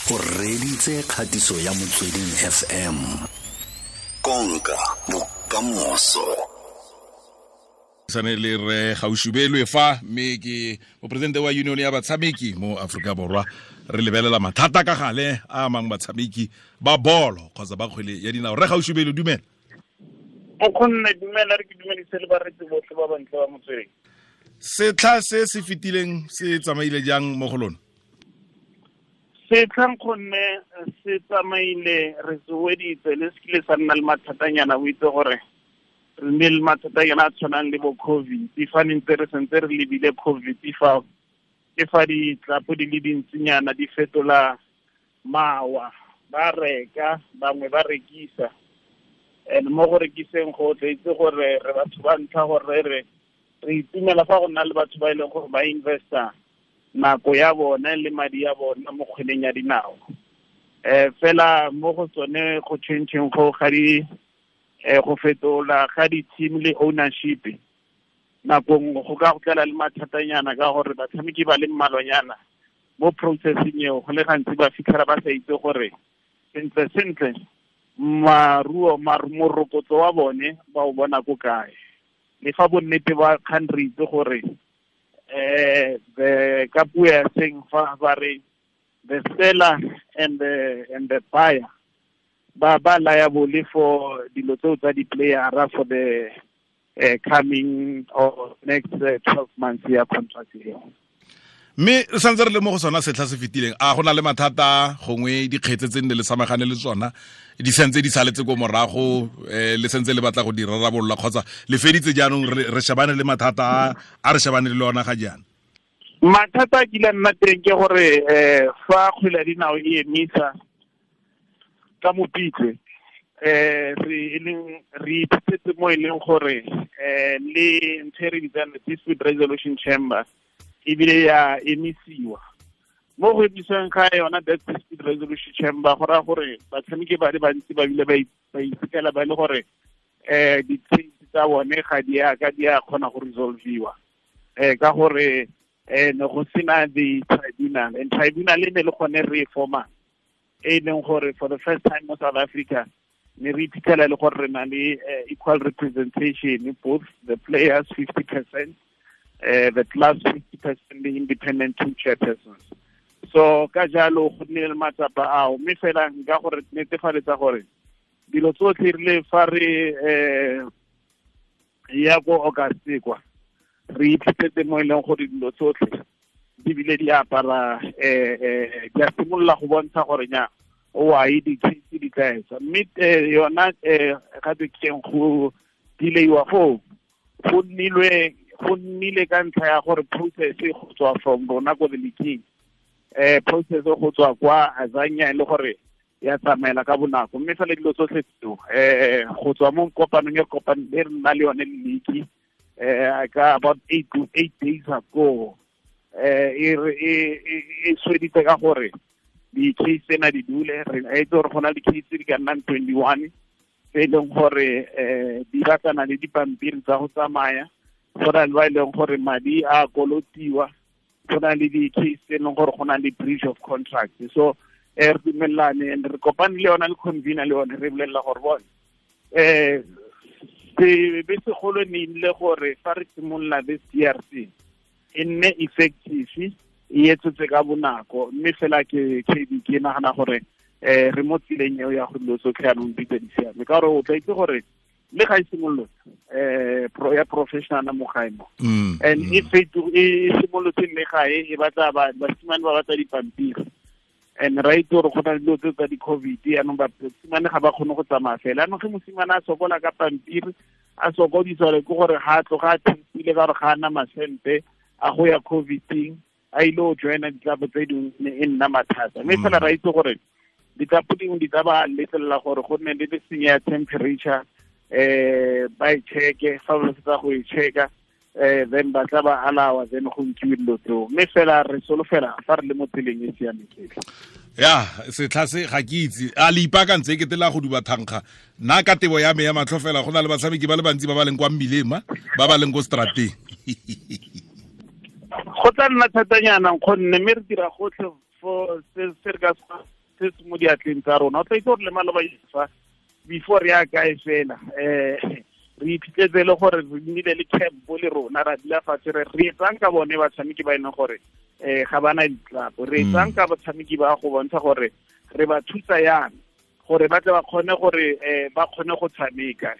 O reditse kgatiso ya Motsweding FM. Konka bokamoso. Sane le re Gaoshubelwe fa, mme ke moporesidente wa union ya batshameki mo Aforika Borwa. Re lebelela mathata ka gale a amang batshameki ba bolo kgotsa ba kgwele ya dinao. Re Gaoshubelwe, dumela. O kgonne, dumela. Re ke dumedise le baretsi botlhe ba bantle ba Motsweding. Setlha se se fetileng se tsamaile jang mo go lona? Setlhang gonne se tsamaile, re se weditse le se kile sa nna le mathatanyana. O itse gore re nne le mathatanyana a tshwanang le bo COVID fa ne ntse re sentse re lebile COVID, fa ke fa ditlapo di le dintsinyana di fetola mawa, ba reka bangwe ba rekisa, and mo go rekiseng go tla itse gore re batho ba ntlha gore re itumela fa go nna le batho ba e leng gore ba investa nako ya bone le madi ya bona mo kgweleng ya dinao. Fela mo go tsone go changeng go ga di go fetola ga di-team le ownership, nako nngwe go ka go tlela le mathatanyana ka gore batshameki ba le mmalwanyana mo processing eo go le gantsi ba fitlhela ba sa itse gore sentle sentle maruo morokotso wa bone ba o bona ko kae. Le fa bonnete ba kgang re itse gore the ka puo ya seng fa ba re the seller and the buyer ba liable for dilo tseo tsa di-playera for the coming or next 12 months ya contract eo. Mme re santse re le mo go sona setlha se fetileng, a go na le mathata gongwe dikgetse tse nne le samagane le tsona di santse di saletse ko morago, le santse le batla go di rarabolola, kgotsa le feditse jaanong re shebane le mathata a re shebane le ona ga jaana? Mathata a kile nna teng ke gore fa kgwele ya dinao e emisa ka Mopitlwe, re e leng re iphitlhetse mo e leng gore le ntho e re bitsang dispute resolution chamber ebile ya emisiwa. Mo go emisiwang ga yona that dispute resolution chamber, go raya gore batshameki ba le bantsi ba bile ba iphitlhela ba e le gore di-case tsa bone ga di a ka di a kgona go resolviwa ka gore ne go sena the tribunal, and tribunal e ne le gone re e forma e leng gore for the first time mo South Africa ne re iphitlhela e le gore re na le equal representation, both the players 50%, the clubs 50%, the independent two chairpersons. So ka jalo go nnile le matsapa ao, mme fela nka gore netefaletsa gore dilo tsotlhe rile fa re ya ko August kwa re iphitlhetse mo e leng gore dilo tsotlhe di bile di apara di a simolola go bontsha gore nya oai di-case di tla etsa. Mme yona ga keng go delaywa foo go nnile ka ntlha ya gore process go tswa from rona ko the leaking process go tswa kwa Azania e le gore ya tsamaela ka bonako. Mme fela dilo tsotlhe tseo go tswa mo kopanong e kopano e re nna le yone le league ka about 8 to 8 days ago, e sweditse ka gore di-case tsena di dule. Re itse gore go na le di-case di ka nnang 21 tse e leng gore di batlana le dipampiri tsa go tsamaya, go na le ba e leng gore madi a kolotiwa, go na le di-case tse e leng gore go na le breach of contract. So re dumelelane and re kopane le yona le convener le yone, re bolelela gore bone sebe segolo ne ile gore fa re simolola this DRC e nne effective, e etsetse ka bonako. Mme fela ke KB ke nagana gore re mo tseleng eo ya go dilo tsotlhe yanong di tse di siame, ka gore o tla itse gore le ga e simolotse ya professional mo gae mo and e feto e simolotse le gae e batla basimane ba batla dipampiri, and ra itse gore go na le dilo tse tsa di-COVID. Yaanong basimane ga ba kgone go tsamaya fela. Yaanong ge mosimane a sokola ka pampiri, a sokodiswa le ke gore ga a tloga a thempile ka gore ga a na masente a go ya COVIDing a ile go joina ditlapo tse dingwe, e nna mathata. Mme fela ra itse gore ditlapo dingwe di tla ba letlelela gore go nne le senya ya temperature, ba e checke. Fa ba fetsa go e checka, then ba tla ba alawa, then go nkiwe dilo tseo. Mme fela re solofela fa re le mo tseleng e siameng. Ya setlha se ga ke itse a le ipaakantse e kete la go duba thankga. Nna ka tebo ya me ya matlho fela, go na le batshameki ba le bantsi ba ba leng kwa mmileng, ma ba ba leng ko strateng. Go tla nna thatanyana, nkgonne, mme re dira gotlhe for se re ka se se se mo diatleng tsa rona. O tla itse gore le maloba fa before re ya kae fela, re iphitlhetse le gore re nnile le camp le rona, ra dula fatshe re etsang ka bone batshameki ba e leng gore ga bana ditlapo, re etsang ka batshameki ba go bontsha gore re ba thusa yang gore ba tle ba kgone gore ba kgone go tshameka.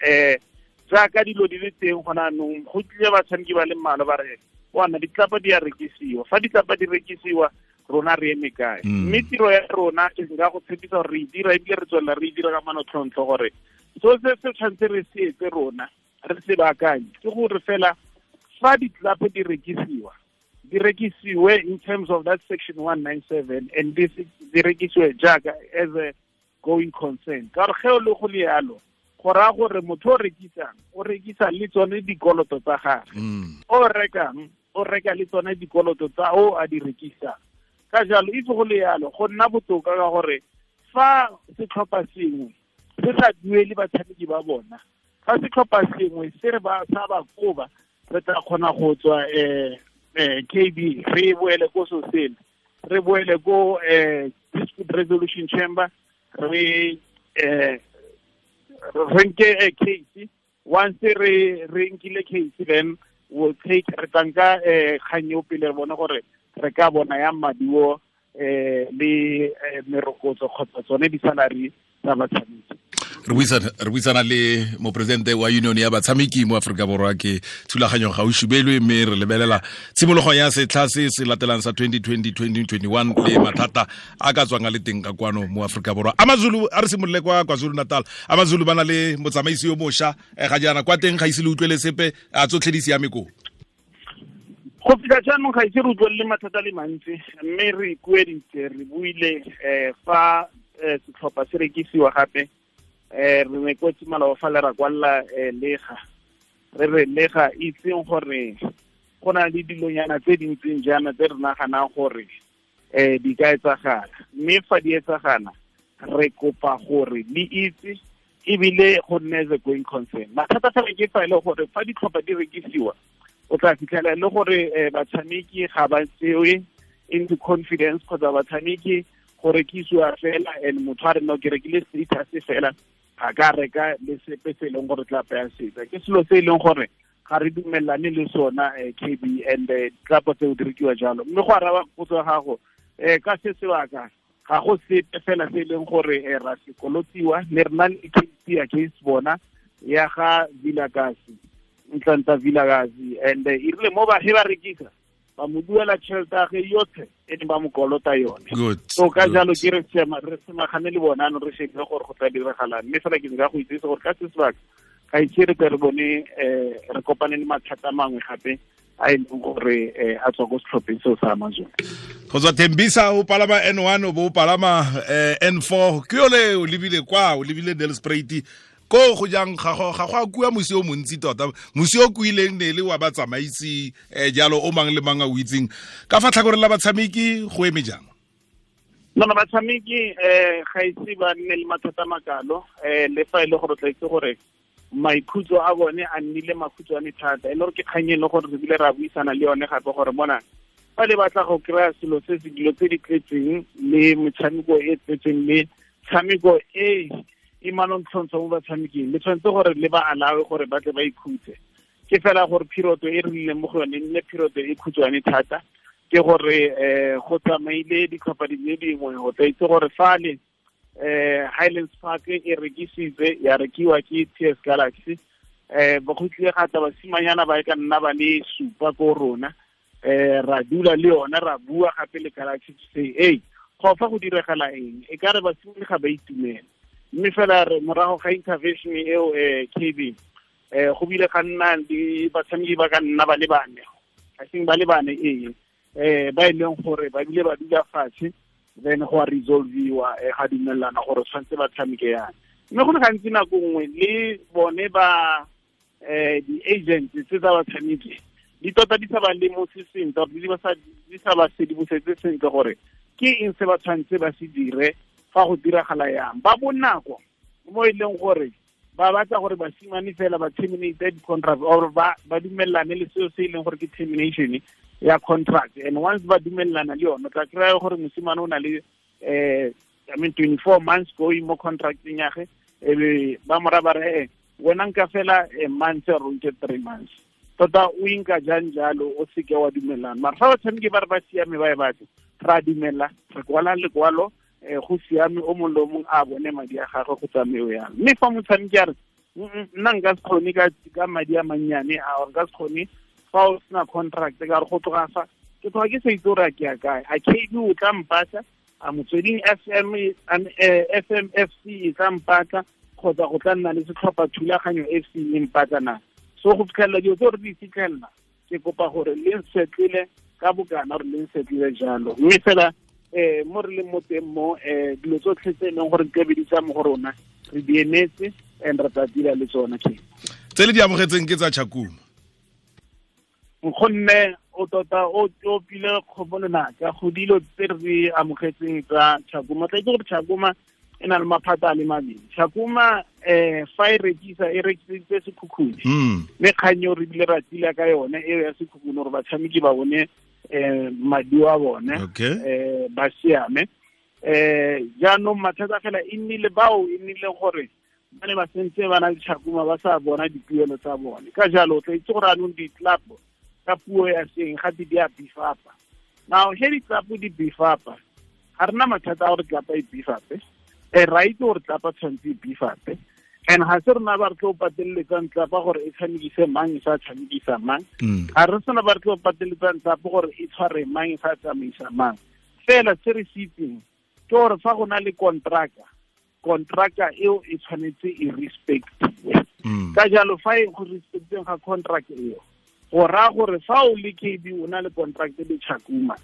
Jaaka dilo di le teng gona anong, go tlile batshameki ba le mmalwa ba re wana ditlapa di a rekisiwa, fa ditlapa di rekisiwa rona re eme kae? Mme tiro ya rona ke nka go tshepisa gore re e dira, ebile re tswelela re e dira ka manotlhotlho gore so se se tshwanetse re se etse rona re se baakanye ke gore fela fa ditlapa di rekisiwa, di rekisiwe in terms of that section 197 and this di rekisiwe jaaka as a going concern. Ka gore ge o le go le yalo, go raya gore motho o rekisang o rekisa le tsone dikoloto tsa gagwe, o rekang o reka le tsone dikoloto tsa o a di rekisang. Ka jalo itse go le yalo go nna botoka ka gore fa setlhopha sengwe se sa duele batshameki ba bona, fa setlhopha sengwe se re ba sa ba koba, re tla kgona go tswa KB, re boele ko sosele, re boele ko dispute resolution chamber, re nke case. Once re nkile case, then we'll take re tla nka kgang eo pele re bone gore re ka bona yang maduo le merokotso kgotsa tsone di-salary tsa batshameki. Re buisana le mopresidente wa union ya batshameki mo Aforika Borwa ke Thulaganyo Gaoshubelwe, mme re lebelela tshimologo ya setlha se se latelang sa 2020-2021 le mathata a ka tswang a le teng ka kwano mo Aforika Borwa. AmaZulu, a re simolole kwa KwaZulu Natal. AmaZulu ba na le motsamaisi yo mošwa ga jaana, kwa teng ga ise le utlwele sepe, a tsotlhe di siame koo? Go fitlha jaanong ga ise re utlwelele mathata le mantsi, mme re ikueditse, re buile fa setlhopha se rekisiwa gape, re ne ko tsimaloba fa le ra kwalla lega, re re lega itseng gore go na le dilonyana tse dintseng jaana tse re naganang gore di ka etsagala, mme fa di etsagala re kopa gore le itse ebile go nne as a going concern. Mathata fela ke fa e le gore fa ditlhopha di rekisiwa, o tla fitlhela e le gore batshameki ga ba tsewe into confidence, kgotsa batshameki go rekisiwa fela and motho a re no ke rekile status fela, ga ka reka le sepe se e leng gore tla paya setsa. Ke selo se e leng gore ga re dumelane le sona, KB, and tlapo tseo di rekiwa jalo. Mme go araba potso ya gago, ka se sebaka ga go sepe fela se e leng gore ra se kolotiwa, ne re na le case against bona ya ga Vilakazi, Ntlantla Vilakazi, and e rile mo ba he ba rekisa ba mo duela tšhelete ya gagwe yotlhe e ne ba mo kolota yone. So ka jalo ke re semagane le bona ano re shebile gore go tla diragalang, mme fela ke nka go itsise gore ka se sebaka ga ise re tle re bone re kopane le mathata mangwe gape a e leng gore a tswa ko setlhopheng seo sa AmaZulu. Go tswa Tembisa o palama N1 o bo o palama N4, ke yole o lebile kwa, o lebile Nelspruit ko go jang, ga go a kua mosi o montsi tota, mosi o kuileng ne le wa batsamaisi jalo o mang le mang a o itseng. Ka fa tlhakoreng la batshameki go eme jang? No, batshameki ga ise ba nne le mathata makalo, le fa e le gore tla itse gore maikhutso a bone a nnile makhutshwane thata, e le gore ke kgang e leng gore re bile ra buisana le yone gape gore mona fa le batla go kry-a selo se se dilo tse di tletseng le metshameko e tletseng le tshameko e e manontlhontlho mo batshameking, le tshwanetse gore le ba alawe gore ba tle ba ikhutse. Ke fela gore period e re leng mo go yone e nne period e khutshwane thata, ke gore go tsamaile ditlhopha di le dingwe, go tla itse gore fale Highlands Park e rekisitswe ya rekiwa ke TS Galaxy, ba go tlile ga tla basimanyana ba e ka nna ba le supa ko rona, ra dula le yona ra bua gape le Galaxy to say hey, go fa go diragala eng, e ka re basimane ga ba itumela. Mme fela re morago ga intervention eo KB, go bile ga nna le batshameki ba ka nna ba le bane, I think ba le bane ba e leng gore ba bile ba dula fatshe, then go a resolviwa ga dumelana gore tshwanetse ba tshameke yana. Mme go le gantsi nako nngwe le bone ba di-agents tse tsa batshameki di tota di sa ba lemose sentle, di sa ba sedimosetse sentle gore ke eng se ba tshwanetse ba se dire fa go diragala yang. Ba bonako mo e leng gore ba batla gore basimane fela ba terminate di-contract or ba dumellane le seo se e leng gore ke termination ya contract, and once ba dumellana le yone, o tla kry-a gore mosimane o na le I mean 24 months going mo contracting ya ge ebe ba mora ba re wena nka fela a month or nke 3 months tota o inka jang jalo o seke wa dumelana. Mara fa batshameki ba re ba siame ba e batla, ra dumela, re kwala lekwalo, go siame, o mongwe le o mongwe a bone madi a gagwe go tsameo yang. Mme fa motshameki a re nna nka se kgone ka madi a mannyane a, or nka se kgone fa o sena contract, ka re go tloga fa ke tloga ke sa itse gore a ke ya kae, a KB o tla mpatla, a Motsweding FM FMFC e tla mpatla, kgotsa go tla nna le setlhopha thulaganyo FC e mpatla na. So go fitlhelela dilo tse re di fitlhelela, ke kopa gore le nsetlele ka bokana gore le nsetlele jalo. Mme fela mo re leng mo teng mo, dilo tsotlhe tse e leng gore di tlabe di tsa mo go rona re di emetse and re tla dira le tsona. Ke tse le di amogetseng ke tsa Tshakhuma. Gonne o tota o opile kgomo lenaka go dilo tse re di amogetseng tsa Tshakhuma. Tla itse gore Tshakhuma e na le maphata a le mabedi. Tshakhuma fa e rekisa, e rekiseditse Sekhukhune. Mme kgang eo re bile ra tila ka yone eo ya Sekhukhune gore batshameki ba bone maduo a bone, ba siame. Jaanong mathata fela e nnile bao e nnile gore ba ne ba sentse ba na le Tshakhuma ba sa bona dipuelo tsa bone. Ka jalo o tla itse gore anong di-club ka puo ya seng gape di a beef-apa. Now he di-club di beef-apa, ga rena mathata a gore club e beef-ape, ra itse gore club tshwanetse e beef-ape, and ga se rena ba re tlo pateletsang club gore e tshamekise mang e sa tshamekisa mang, ga re sena ba re tlo pateletsang club gore e tshware mang e sa tsamaisa mang. Fela se re se itseng ke gore fa go na le contracta eo e tshwanetse e respectiwe. Ka jalo fa e go respecteng ga contract eo, go raya gore fa o le KB o na le contract le Tshakhuma,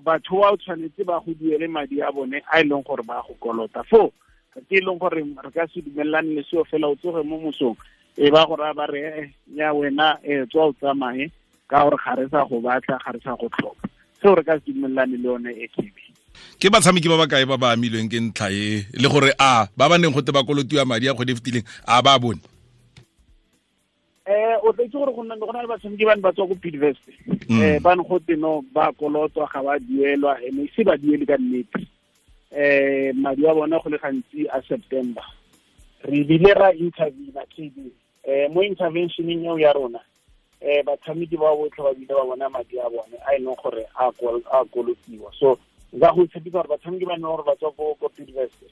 batho ba o tshwanetse ba go duele madi a bone a e leng gore ba go kolota. Foo ke e leng gore re ka se dumelane le seo fela, o tsoge mo mosong e ba go raya ba re ya wena tswa o tsamaye ka gore ga re sa go batla, ga re sa go tlhoka. Seo re ka se dumelane le yone e KB. Ke batshameki ba ba kae ba ba amilweng ke ntlha e, le gore a ba ba neng gote ba kolotiwa madi a kgwedi e fetileng a ba bone? O tla itse gore go na le batshameki ba ne ba tswa ko Bidvest, ba ne gote no ba kolotwa ga ba duelwa, ene ise ba duele ka nnete. Madi a bona go le gantsi a September. Re bile ra intervene KB. Mo interventioneng eo ya rona, batshameki ba botlhe ba bile ba bona madi a bone a e leng gore a kolotiwa. So nka go tshepisa gore batshameki ba ne gore ba tswa ko Bidvest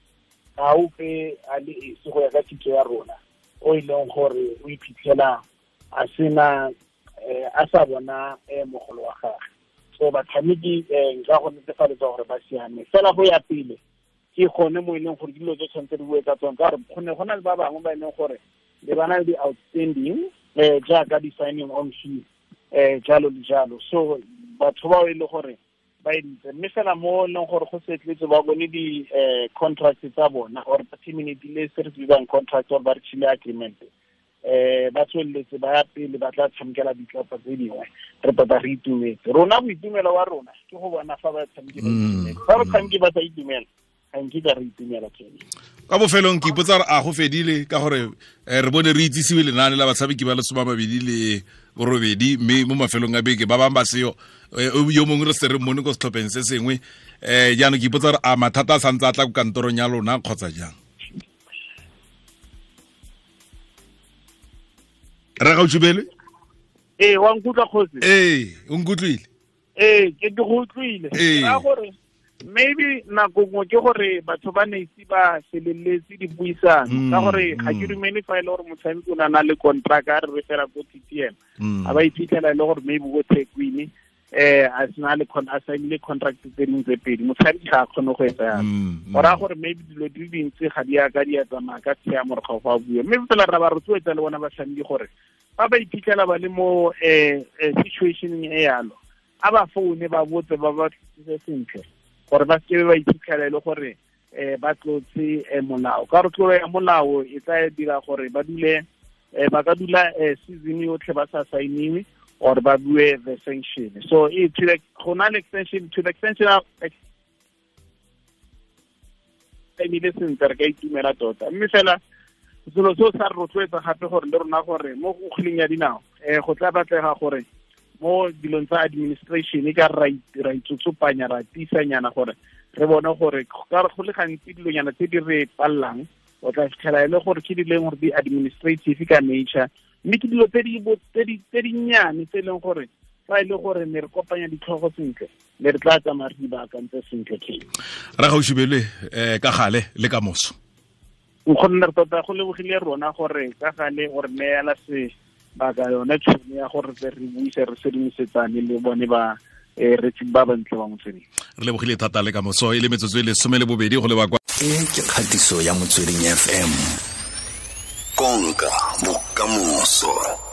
ga ope a le esi go ya ka kitso ya rona o e leng gore o iphitlhela a sena a sa bona mogolo wa gagwe. So batshameki nka go netefaletsa gore ba siame. Fela go ya pele ke gone mo e leng gore dilo tse tshwanetse di bue ka tsone, ka gore go ne go na le ba bangwe ba e leng gore le ba na le di-outstanding jaaka di-signing on fee jalo le jalo. So batho bao e le gore ba editse, mme fela mo e leng gore go setletse ba bone di-contract tsa bona or ba terminatile se re se bitsang contract or ba re tšhile agreement, ba tsweletse ba ya pele ba tla tshamekela ditlhopha tse dingwe. Re tota re itumetse. Rona boitumelo wa rona ke go bona fa batshameki ba itumetse. Fa batshameki ba sa itumela, ga nkitla re itumela kene. Ka bofelong ke ipotsa gore a go fedile, ka gore re bone re itsisiwe lenaane la batshameki ba le 28, mme mo mafelong a beke ba bangwe ba seo, yo mongwe re se re mmone ko setlhopheng se sengwe. Jaanong ke ipotsa gore a mathata a santse a tla ko kantorong ya lona kgotsa jang? Re Gaoshubelwe? Ee, wa nkutlwa kgosi? Ee, o nkutlwile? Ee, ke go utlwile. Ka gore maybe nako nngwe ke gore batho ba ne ise ba feleletse dipuisano, ka gore ga ke dumele fa e le gore motshameki o na le contract a re re fela ko TTM, a ba iphitlhela e le gore maybe ko Thekwini a sena le a signile contract tse dingwe tse pedi, motshameki ga a kgone go etsa yalo. Go raya gore maybe dilo di le dintsi ga di a ka di a tsamaya ka tshiamo gore ga go a bua. Mme fela ra ba rotloetsa le bona batshameki gore ba ba iphitlhela ba le mo situationeng e yalo, a ba foune ba botse ba ba tlisitse sentle gore ba seke ba iphitlhela e le gore ba tlotse molao. Ka gore tlolo ya molao e tla dira gore ba dule ba ka dula season yotlhe ba sa signiwe or ba bue the sanction. So go na le extension to the extension of emile sentle, re ka itumela tota. Mme fela selo seo sa re rotloetsa gape gore le rona gore mo go kgweleng ya dinao go tla batlega gore mo dilong tsa administration e ka ra itsotsopanya ra tiisanyana gore Re bone gore ka go le gantsi dilonyana tse di re pallang, o tla fitlhela e le gore ke di leng gore di administrative ka nature, mme ke dilo tse di nnyane tse e leng gore fa e le gore ne re kopanya ditlhogo sentle, ne re tla tsamaya re di baakantse sentle. Ke Ra Gaoshubelwe, ka gale le ka moso. Nkgonne, re tota go lebogile rona gore ka gale gore neela sebaka, yone tšhono ya gore re buise, re sedimosetsane le bone ba retsi ba bantle ba Motsweding. Re lebogile thata, le ka moso. E le metsotso e le 12 go leba kwa E ke kgatiso ya Motsweding FM, konka bokamoso.